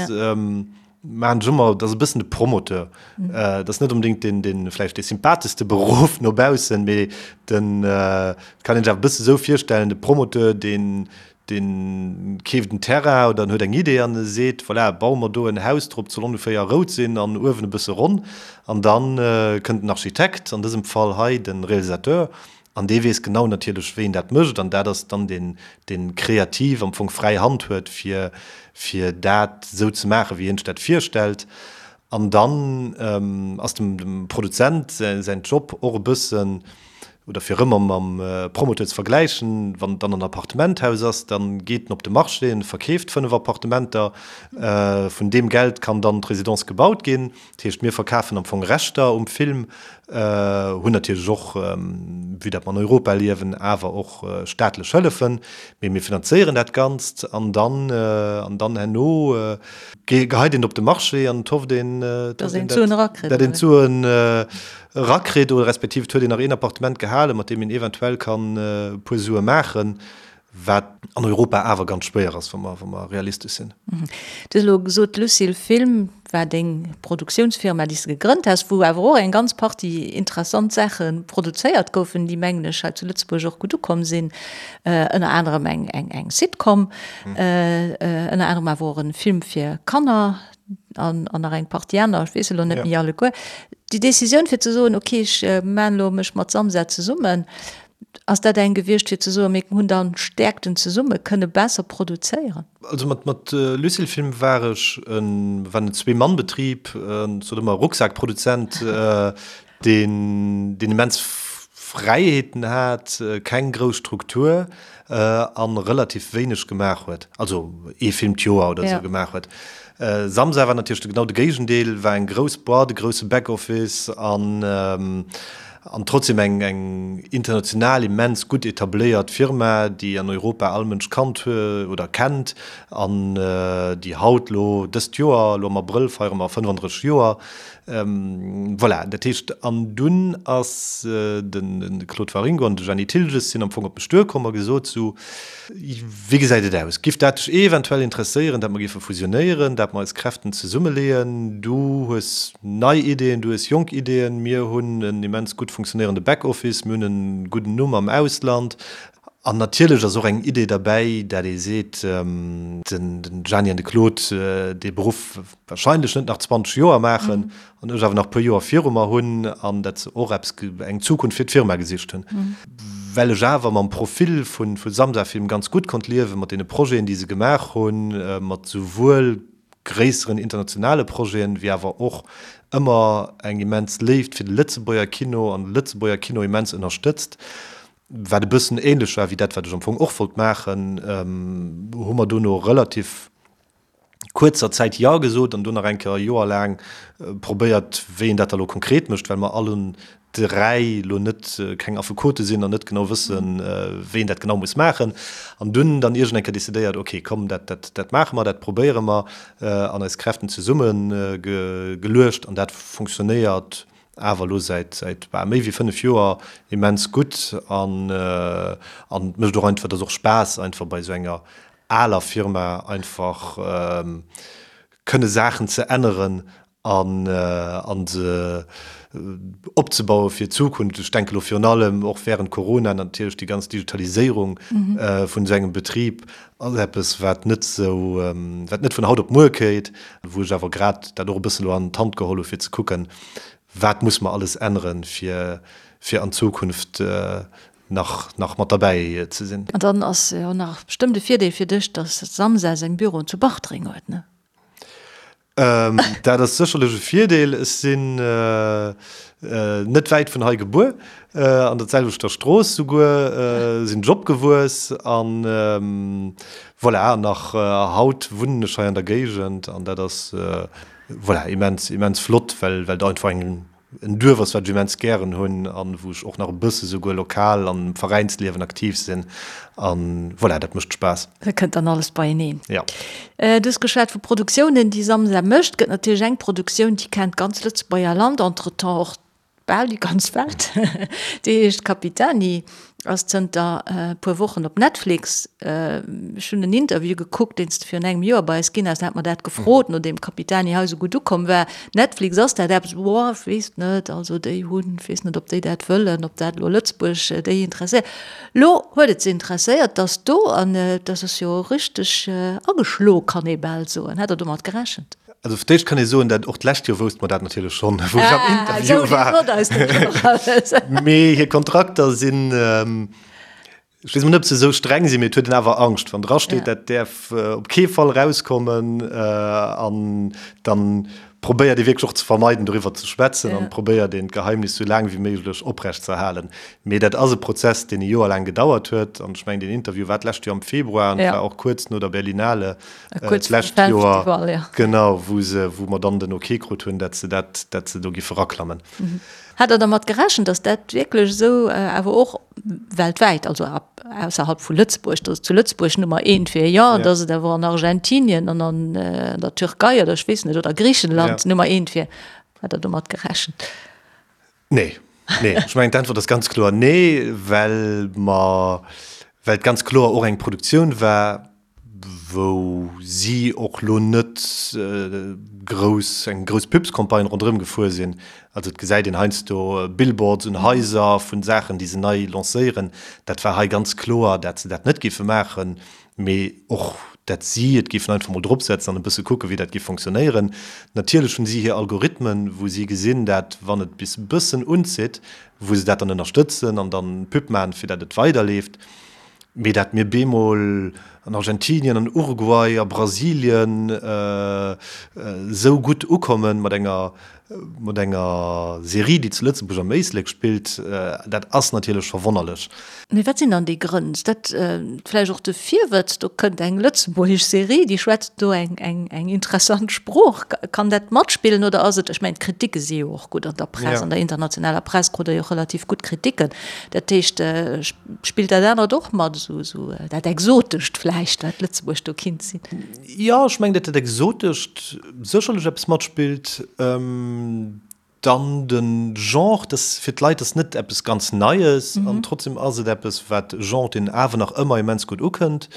maachen ech ëmmer, dat ass e bëssen de Promoteur. Dat ass net onbedéngt deen, deen vläicht dee sympatheschste Beruff no baussen, mee den, et kann een sech awer e bësse esou virstellen, de Promoteur, deen, deen keeft en Terrain oder en huet eng Idee an e seet, voilà, baue mer do en Haus drop, et soll ongeféier rout sinn an uewen e bësse ronn. An da kënnt den Architekt, an dësem Fall hei de Realisateur, An dee weess genau natierlech, wéi en dat mécht. An dat ass dann deen, dee kreativ am Fong fräi Hand huet, fir, fir dat esou ze maachen, wéi hien sech dat virstellt. An dann ass dem, dem Produzent säin Job och e bëssen, oder fir erëm mam Promoteur ze vergläichen, wann et dann en Appartementhaus ass, da geet en op de Marché, en verkeeft 5 Appartementer, vun deem Geld kann dann d'Residence gebaut ginn. Dat heescht, mir verkafen am Fong Rechter um Film, hunn natierlech och, vue dat mer an Europa liewen, awer och staatlech Hëllefen, mee mir finanzéieren dat Ganzt an dann, an dann herno geheit een et op de Marché an et hofft een, Dass een d'Suen erakritt. Dat een d'Suen erakritt oder respektiv et huet een nach een Appartement gehalen, mat deem een eventuell kann e puer Sue maachen. Wat an Europa awer ganz schwéier ass, wa mer, wa mer realistesch sinn. Du hues elo gesot, Lucille Film war deng Produktiounsfirma, déi s de gegrënnt has, wou awer och eng ganz Partie interessant Saache produzéiert goufen, déi, mengen ech, hei zu Lëtzebuerg och gutt ukomm sinn. Ënner anerem eng, eng, eng Sitcom, ënner anerem awer och e Film fir Kanner an, an nach eng Partie aner, ech weess elo net méi alleguer. Déi Decisioun fir ze soen, okay, ech maan elo mech mat Samsa zesummen, Ass dat eng gewiescht fir ze soen, mir hunn dann Stäerkten zesumme, kënne besser produzéieren? Also mat mat Lucille Film war ech en war en Zwee-Mann-Betrib, ech sot ëmmer Rucksak-Produzent, deen deen immens Fräiheeten hat, keng grouss Struktur an relativ wéineg gemaach huet, also ee Film d'Joer oder esou gemaach huet. Samsa war natierlech genau de Géigendeel, war eng grouss Boîte, e grousse Backoffice an an trotzdem eng eng international immens gutt etabléiert Firma, déi an Europa all Mënsch kannt huet oder kennt an déi haut elo dëst Joer, elo am Abrëll feiere mer 35 Joer, Voilà, dat heescht, an dunn ass de Claude Waringo an de Jeanny Thiltges sinn am Fong op mech duerkomm a gesot, sou, wéi gesäit et aus, giff dat dech eventuell interesséieren, dat mer géife fusionéieren, dat mer eis Kräften zesummeleeën? Du hues nei Ideeën, du hues jonk Ideeën, mir hunn en immens gutt funktionéierende Backoffice, mir hunn e gudden Numm am Ausland. An natierlech ass och eng Idee derbäi, dat ee seet, den Gianni an de Claude, dee Beruff wahrscheinlech net nach 20 Joer maachen an ech awer nach e puer Joer viru mer hunn an dat se och eppes, eng Zukunft fir d'Firma gesicht hunn. Well ech awer mam Profil vu Samsa Film ganz gutt konnt liewen, mat deene Projeten, déi se gemaach hunn, mat souwuel. gréisseren internationale Projeten, wéi awer och ëmmer eng immens Léift fir de Lëtzebuerger Kino an de Lëtzebuerger Kino immens ënnerstëtzt, wat e bëssen ähnlech war wéi dat, wat ech am Fong och wollt maachen, hu mer dono relativ kuerzer Zäit Jo gesot an do nach eng Kéier e Joer laang probéiert, wéi een dat da lo konkret mécht, well mer allen 3 lo net keng Affekote sinn an net genau wëssen, wéi een dat genau muss maachen. An dunn dann iergend eng Kéier decidéiert, ok, komm, dat, dat, dat maache mer, dat probéiere mer an eis Kräften zesumme geluecht an dat funktionéiert awer elo säit, säit bal méi wéi 5 Joer immens gutt an, an et mécht och einfach, et ass och Spaass einfach bei esou enger aler Firma einfach kënne Saachen ze änneren an an se opzebaue fir d'Zukunft. Ech denke lo virun allem och während Corona natierlech déi ganz Digitaliséierung vun esou engem Betrib ass eppes wat net esou, wat net vun haut op muer kéit, wou ech awer grad dat och e bësse lo an d'Hand geholl hu fir ze kucken, wat muss mer alles änneren, fir fir an Zukunft nach nach mat derbäi ze sinn. An dann ass jo nach bestëmmt e Virdeel fir dech, dass Samsa seng Büroen zu Bartreng huet, ne? Dat ass sécherlech e Virdeel. Ech sinn net wäit vun hei gebuer, an der selwechter Strooss souguer sinn ech opgewuess an voilà, nach haut wunnen ech hei an der Géigend an dat ass voilà immens immens flott, well well et einfach eng En Duerf ass, wat ech immens gären hunn an wou ech och nach e bësse souguer lokal am Veräinsliewen aktiv sinn. An voilà, dat mécht Spaass. Dat kënnt dann alles beieneen. Jo. Du hues geschwat vu Produktiounen, déi Samsa mécht. Gëtt natierlech eng Produktioun, déi kennt d'ganz Lëtzebuerger Land, entretemps och bal déi ganz Welt. Déi heescht Capitani. Ass zënter e puer Wochen op Netflix. Ech hunn en Interview gekuckt, deen s de virun engem Joer bei eis ginn has. Da hat mer dat gefrot, nodeem Capitani hei esou gutt ukomm war. Netflix, ass dat eppes? Boah, ech weess net. Also déi hunn, ech weess net, ob déi dat wëllen, ob dat elo Lëtzebuerg déi interesséiert. Lo huet et se interesséiert, dass do, an dat ass jo richteg ageschlo, kann ee bal soen. Hat Der domat gerechent? Also fir d'éischt kann ee soen, dat och d'lescht Joer wousste mer dat natierlech schonn, wou ech am Interview war. Mee hir Kontrakter sinn, ech weess emol net, ob se esou streng sinn, mee et huet een awer Angscht, wann drasteet, dat däerf op kee Fall erauskommen. An dann probéiert ee wierklech och ze vermeiden, doriwwer ze schwätzen an probéiert een, d'Geheimnis esou laang wéi méiglech oprecht ze erhalen. Mee dat ass e Prozess, deen e Joer laang gedauert huet. An ech mengen, deen Interview war d'lescht Joer am Februar an et war och kuerz no der Berlinale. D'lescht Joer, genau, wou se, wou mer dann den Ok krut hunn, dat se dat, dat se do giffe raklammen. Hat Der dermat gerechent, datt dat wierklech esou, awer och weltwäit, also ausserhalb vu Lëtzebuerg, datt et zu Lëtzebuerg Nummer eent wier, jo, datt et awer an Argentinien an an der Türkei oder ech weess net, oder Griichenland Nummer eent wier? Hat Der domat gerechent? Nee, nee. Ech mengen, d'Äntwert ass ganz kloer nee, well mer, well et ganz kloer och eng Produktioun war, wou si och lo net grouss, eng grouss Pubscampagne ronderëm gefuer sinn. Also et gesäit een heiansdo Billboards un Haiser vun Saachen, déi se nei lancéieren. Dat war hei ganz kloer, dat se dat net géife maachen, mee och dat si et géifen einfach mol dropsetzen an e bësse kucken, wéi dat géif fonctionnéieren. Natierlech hunn si hir Algorithmen, wou si gesinn, dat wann et bis e bëssen unzitt, wou se dat dann ënnerstëtzen an dann Pub maachen, fir dat et weiderleeft. Mee dat mir bemol an Argentinien, an Uruguay, a Brasilien esou gutt ukommen mat enger, mat enger Serie, déi zu Lëtzebuerg am Éislek spillt, dat ass natierlech verwonnerlech. Mee wat sinn dann déi Grënn? Ass dat vläicht och de Virwëtz, do kënnt eng lëtzebuergesch Serie, déi schwätzt do eng, eng, eng interessant Sprooch? Kann dat matspillen oder ass et, ech mengen d'Kriticke si jo och gutt an der Press, an der internationaler Press krut Der jo och relativ gutt Kriticken, dat heescht, Spillt dat anert och mat, esou esou dat Exotescht vläicht, wat Lëtzebuerg do kinnt sinn? Jo, ech mengen, datt dat Exotescht sécherlech eppes matspillt. Dann de Genre, dass fir d'Leit ass net eppes ganz Neies an trotzdem ass et eppes, wat e Genre, deen awer nach ëmmer immens gutt ukënnt.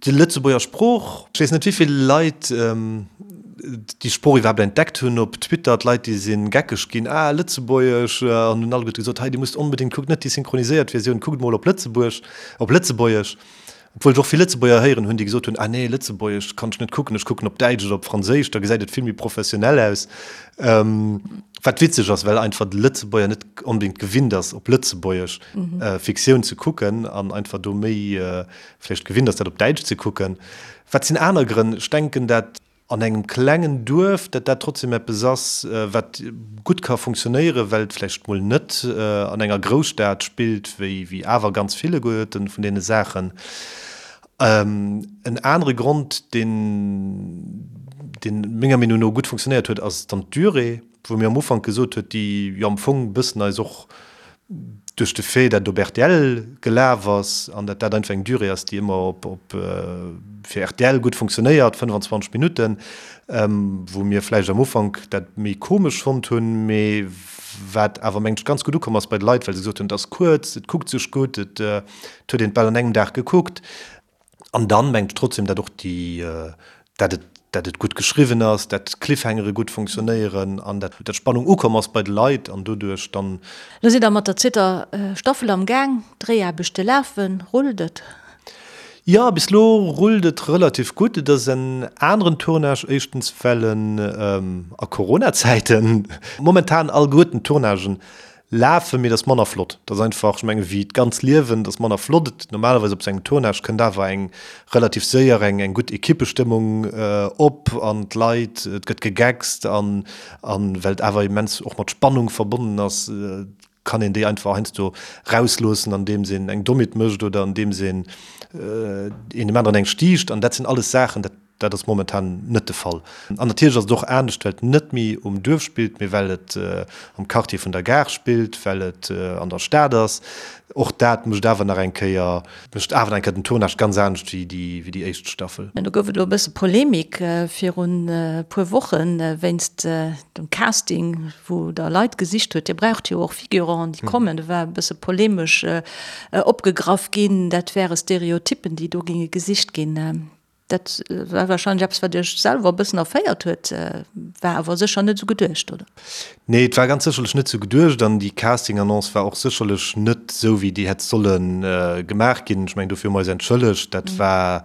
Déi Lëtzebuerger Sprooch, ech weess net wéivill Leit déi Sprooch iwwerhaapt entdeckt hunn op Twitter, d'Leit déi si geckeg ginn, ah Lëtzebuergesch, an hunn alleguerte gesot, hei dir musst onbedéngt, kuckt net déi synchroniséiert Versioun, kuckt mol op Lëtzebuerg, op Lëtzebuergesch. Obwuel ech och vill Lëtzebuerger héieren hunn, déi gesot hunn, ah nee Lëtzebuergesch kann ech net kucken, ech kucken op Däitsch oder op Franséisch, da gesäit et vill méi professionell aus. Wat witzeg ass, well einfach de Lëtzebuerger net onbedéngt gewinnt ass op Lëtzebuergesch Fiktioun ze kucken an einfach do méi vläicht gewinnt ass, dat op Däitsch ze kucken. Wat sinn aner Grënn? Ech denken, dat. An engem klengen Duerf, dat dat trotzdem eppes ass, wat gutt ka funktionéieren, well et vläicht mol net an enger Grousstad spillt, wéi wéi awer ganz vill vun deene Saachen. En anere Grond, deen, deen menger Meenung no gutt funktionéiert huet, ass dann d'Durée, wou mir am Ufank gesot huet, déi jo am Fong e bëssen eis och duerch de Fait, dat et op rtl gelaf ass an dat dat einfach eng Durée ass, déi ëmmer op, op fir rtl gutt funktionéiert, 25 Minutten, wou mir vläicht am Ufank dat méi komesch fonnt hunn, mee wat awer, mengen ech, ganz gutt ukomm ass bei de Leit, well se gesot hunn, et ass kuerz, et kuckt sech gutt, et huet een et bal an engem Dag gekuckt. An dann mengt ech trotzdem, dat och déi, dat et, dat et gutt geschriwwen ass, dat d'Cliffhangere gutt funktionéieren an dat d'Spannung ukomm ass bei de Leit an doduerch dann. Lo sidd der mat der zweeter Staffel am Gaang, d'Dréiaarbechte lafen, rullt et? Jo, bis lo rullt et relativ gutt. Et ass en aneren Tournage, éischtens well en a Corona-Zäiten momentan alleguerten d'Tournagen Lafen, mee et ass manner flott. Et ass einfach, ech mengen, wéi d'ganz Liewen, et ass manner flott. Et, normalerweis op sou engem Tournage kënnt awer eng relativ séier eng eng gutt Ekippestëmmung op an d'Leit, et gëtt gegeckst an an well et awer immens och mat Spannung verbonnen ass, kann een déi einfach heiansdo rausloossen, andeems een eng Dommheet mécht oder andeems een een dem aneren eng stiicht an dat sinn alles Saachen, dat Dat ass momentan net de Fall. An natierlech ass et och anescht, well et net méi um Duerf spillt, mee well et am Quartier vun der Gare spillt, well et an der Stad ass. Och dat mécht awer nach eng Kéier, mécht awer nach eng Kéier den Tournage ganz anescht wéi déi, wéi déi éischt Staffel. Do gouf et elo e bësse Polemik virun e puer Woche wéinst dem Casting, wou Der Leit gesicht huet. Dir braucht jo och Figuranten, déi kommen. Do war e bësse polemesch opgegraff ginn, dat wäre Stereotyppen, déi do géinge gesicht ginn. Dat war wahrscheinlech eppes, wat Iech selwer e bëssen erféiert huet, war awer sécher net esou geduecht, oder? Nee, et war ganz sécherlech net esou geduecht an déi Casting-Annonce war och sécherlech net esou, wéi déi hätt solle gemaach ginn. Ech mengen, dofir hu mer eis entschëllegt. Dat war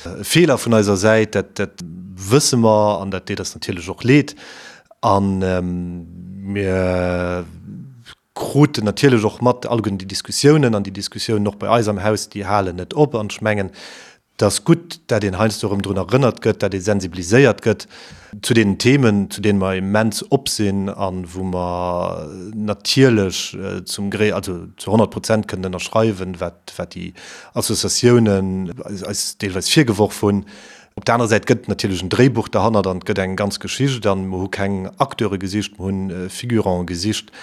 e Feeler vun eiser Säit, dat, dat wësse mer an dat deet eis natierlech och leed. A mir kruten natierlech och mat alleguerten déi Diskussiounen an déi Diskussiounen och bei eis am Haus, déi halen net op. An ech mengen, et ass gutt, dat een heiansdo erëm drun erënnert gëtt, dat ee sensibiliséiert gëtt zu deenen Themen, zu deene mer immens op sinn a wou mer natierlech zum Gré, also zu 100 Prozent kënnen ënnerschreiwen, wat, wat déi Associatiounen eis deelweis virgeworf hunn. Op der anerer Säit gëtt et natierlech en Dréibuch derhannert an et gëtt eng ganz Geschicht an mer hu keng Acteure gesicht, mer hunn Figurante gesicht.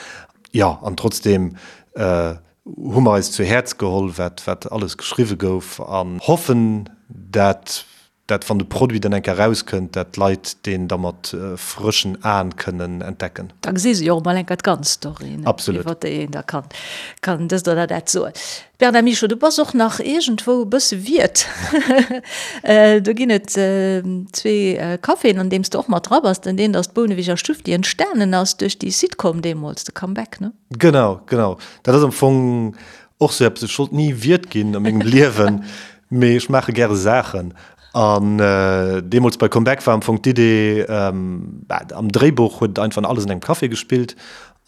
Jo, an trotzdeem hu mer eis zu Häerz geholl, wat wat alles geschriwwe gouf an hoffen, dat dat wann de Produit dann eng Kéier erauskënnt, dat d'Leit deen da mat frëschen Aen kënnen entdecken. Da gesi se jo och emol eng Kéier d'ganz Story, Absolut. iwwer déi een da kann kann dëst oder dat soen. Bernard Michaux, du bass och nach iergendwou e bësse Wiert. Do ginn et zwee Caféen, an deem s de och mat dra bass. Den eent ass d'Bouneweger Stuff, déi entstanen ass duerch déi Sitcom deemools, de Comeback, ne? Genau, genau. Dat ass am Fong och sou eppes, ech wollt ni Wiert ginn a mengem Liewen, mee ech maache gäre Saachen. An deemools bei Comeback war am Fong d'Idee, am Dréibuch huet et einfach alles an engem Café gespillt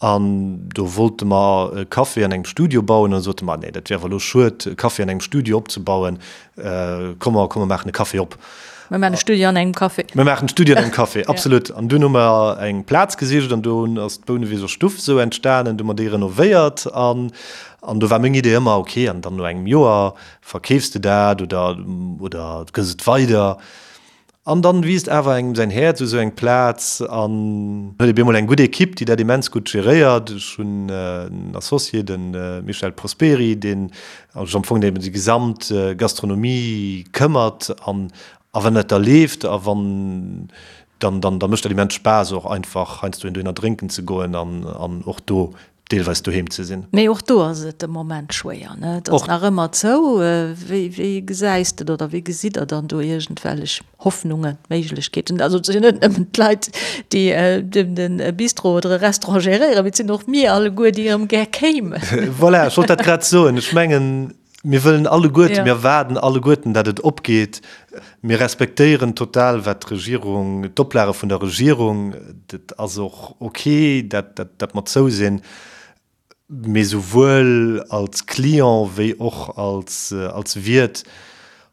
An do wollte mer e Café an engem Studio bauen. An da sote mer, Nee, dat wier awer elo schued, e Café an engem Studio opzebauen. Komm mer, komm mer maachen e Café op. Mir maachen e Studio an engem Café. Mir maachen e Studio an engem Café, absolut. An dunn hu mer eng Plaz gesicht an do ass d'Bouneweger Stuff esou entstanen. Du hu mer déi renovéiert an, an do war meng Idee ëmmer, okay, an dann no engem Joer verkeefs de dat oder, oder gëss et weider. An dann wiisst awer engem säin Häerz u sou eng Plaz an huet ee bemol eng gutt Equipe, déi dat immens gutt geréiert. Ech hunn en Associé, de Michel Prosperi, deen sech am Fong ëm déi gesamt Gastronomie këmmert. An a wann dat da leeft a wann, dann dann da mécht dat immens Spaass och einfach heiansdo een dohinner drénken ze goen an an och do deelweis doheem ze sinn. Mee och do ass et de Moment schwéier, ne? Et ass nach ëmmer zou. Wéi, wéi gesäis de oder wéi gesitt Der dann do iergendwellech Hoffnungen, Méiglechkeeten? Also et sinn jo net nëmmen d'Leit, déi de Bistro oder e Restaurant geréieren, mee et sinn och mir alleguer, déi erëm gär kéimen. Voilà, ech wollt dat grad soen. Ech mengen, Mir wëllen alleguerten, mir erwaarden alleguerten, datt et opgeet. Mir respektéieren total, wat d'Regierung, d'Oplage vun der Regierung, dat ass och ok, dat, dat mer zou sinn. Mee souwuel als Client wéi och als, als Wiert.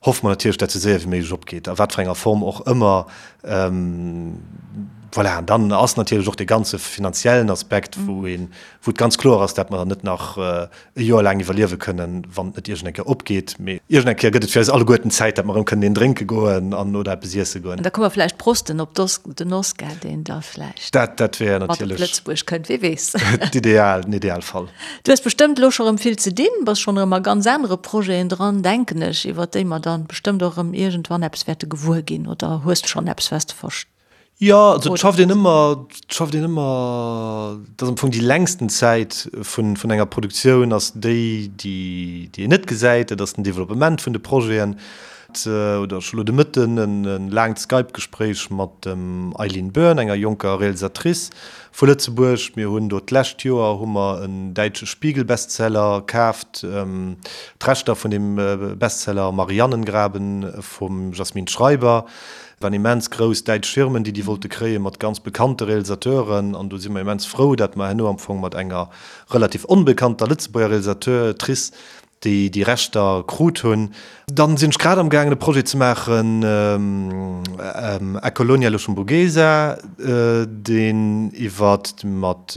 Hoffe mer natierlech, dat sou séier wéi méiglech opgeet, a wat fir enger Form och ëmmer. Voilà, an dann ass natierlech och dee ganze finanziellen Aspekt, wou een, wou et ganz kloer ass, dat mer net nach e Joer laang iwwerliewe kënnen, wann et net iergend eng Kéier opgeet. Mee iergend eng Kéier gëtt et fir eis alleguerten Zäit, dat mer erëm kënnen een drénke goen an oder eppes iesse goen. An da kënne mer vläicht prosten op den Oscar, deen da vläicht Dat, dat wär mat op natierlech Lëtzebuerg kënnt, wie weess. D'ideal, den Idealfall. Du hues bestëmmt elo scho rëm vill ze dinn, bass schonn erëm a ganz anere Projeten dran, denken ech, iwwert déi mer dann bestëmmt och erëm iergendwann eppes wäerte gewuer ginn. Oder hues de schonn eppes, wat s de verst. Jo, also et schafft een ëmmer, et schafft een ëmmer, et ass am Fong déi längsten Zäit vun, vun enger Produktioun ass déi, déi, déi een net gesäit, dat ass den Developpement vun de Projeten. Oder ech hu lo de Mëtten e laangt Skype-Gespréich mat dem Eileen Byrne, enger jonker Realisatrice vu Lëtzebuerg. Mir hunn do d'lescht Joer hu mer en däitsche Spiegel-Bestseller kaaft, d'Rechter vun deem Bestseller Marianengraben vum Jasmin Schreiber. Et waren immens grouss däitsch Firmen, déi déi wollte kréien, mat ganz bekannte Realisateuren. An do si mer immens frou, dat mer herno am Fong mat enger relativ onbekannter Lëtzebuerger Realisateurtrice déi déi Rechter krut hunn. Dann sinn ech grad am gaangen e Projet ze maachen, A Colonia Luxemburguesa, deen iwwert mat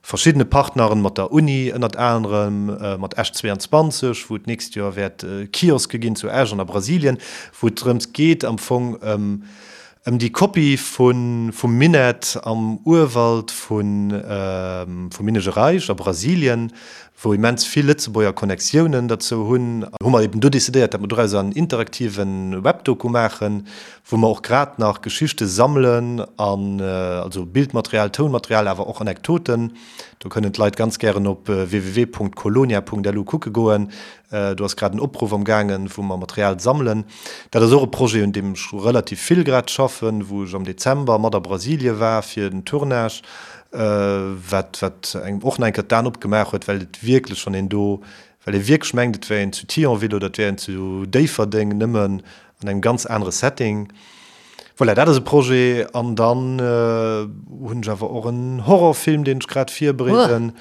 verschiddene Partneren, mat der Uni ënnert anerem, mat Esch 22, wou et d'nächst Joer wäert Kioske ginn zu Esch an a Brasilien, wou et drëms geet am Fong ëm Ëm déi Kopie vum Minett am Urwald vum Minas Gerais a Brasilien, wou immens vill Lëtzebuerger Connectiounen derzou hunn, hu mer eben do decidéiert, datt mer dorauser en interaktive Webdoku maachen, wou mer och grad nach Geschichte sammelen an also Bildmaterial, Tounmaterial, awer och Anekdoten. Do kënnen d'Leit ganz gären op www.colonia.lu kucke goen. Do ass grad en Opruff am gaangen, wou mer Material sammelen. Dat ass och e Projet, un deem ech relativ vill grad schaffen, wou ech am Dezember mat a Brasilie war fir den Tournage, wat wat engem och nach eng Kéier d'Aen opgemaach huet, well et wierklech, wann een do, well ee wierklech mengt, et wär een zu Thionville oder et wär een zu Déifferdeng, nëmmen an engem ganz anere Setting. Voilà, dat ass e Projet. An dann hunn ech awer och en Horrorfilm, deen ech grad virbereeden.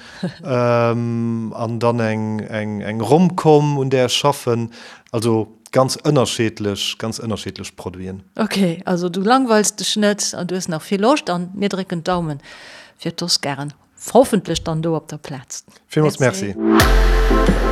An dann eng, eng, eng Romcom, un där ech schaffen. Also ganz ënnerscheedlech, ganz ënnerscheedlech Produiten. Ok, also du langweils dech net an du hues nach vill Loscht an mir drécken d'Daumen fir d'Oscaren. Hoffentlech dann do op der Plaz. Villmools Merci. Merci.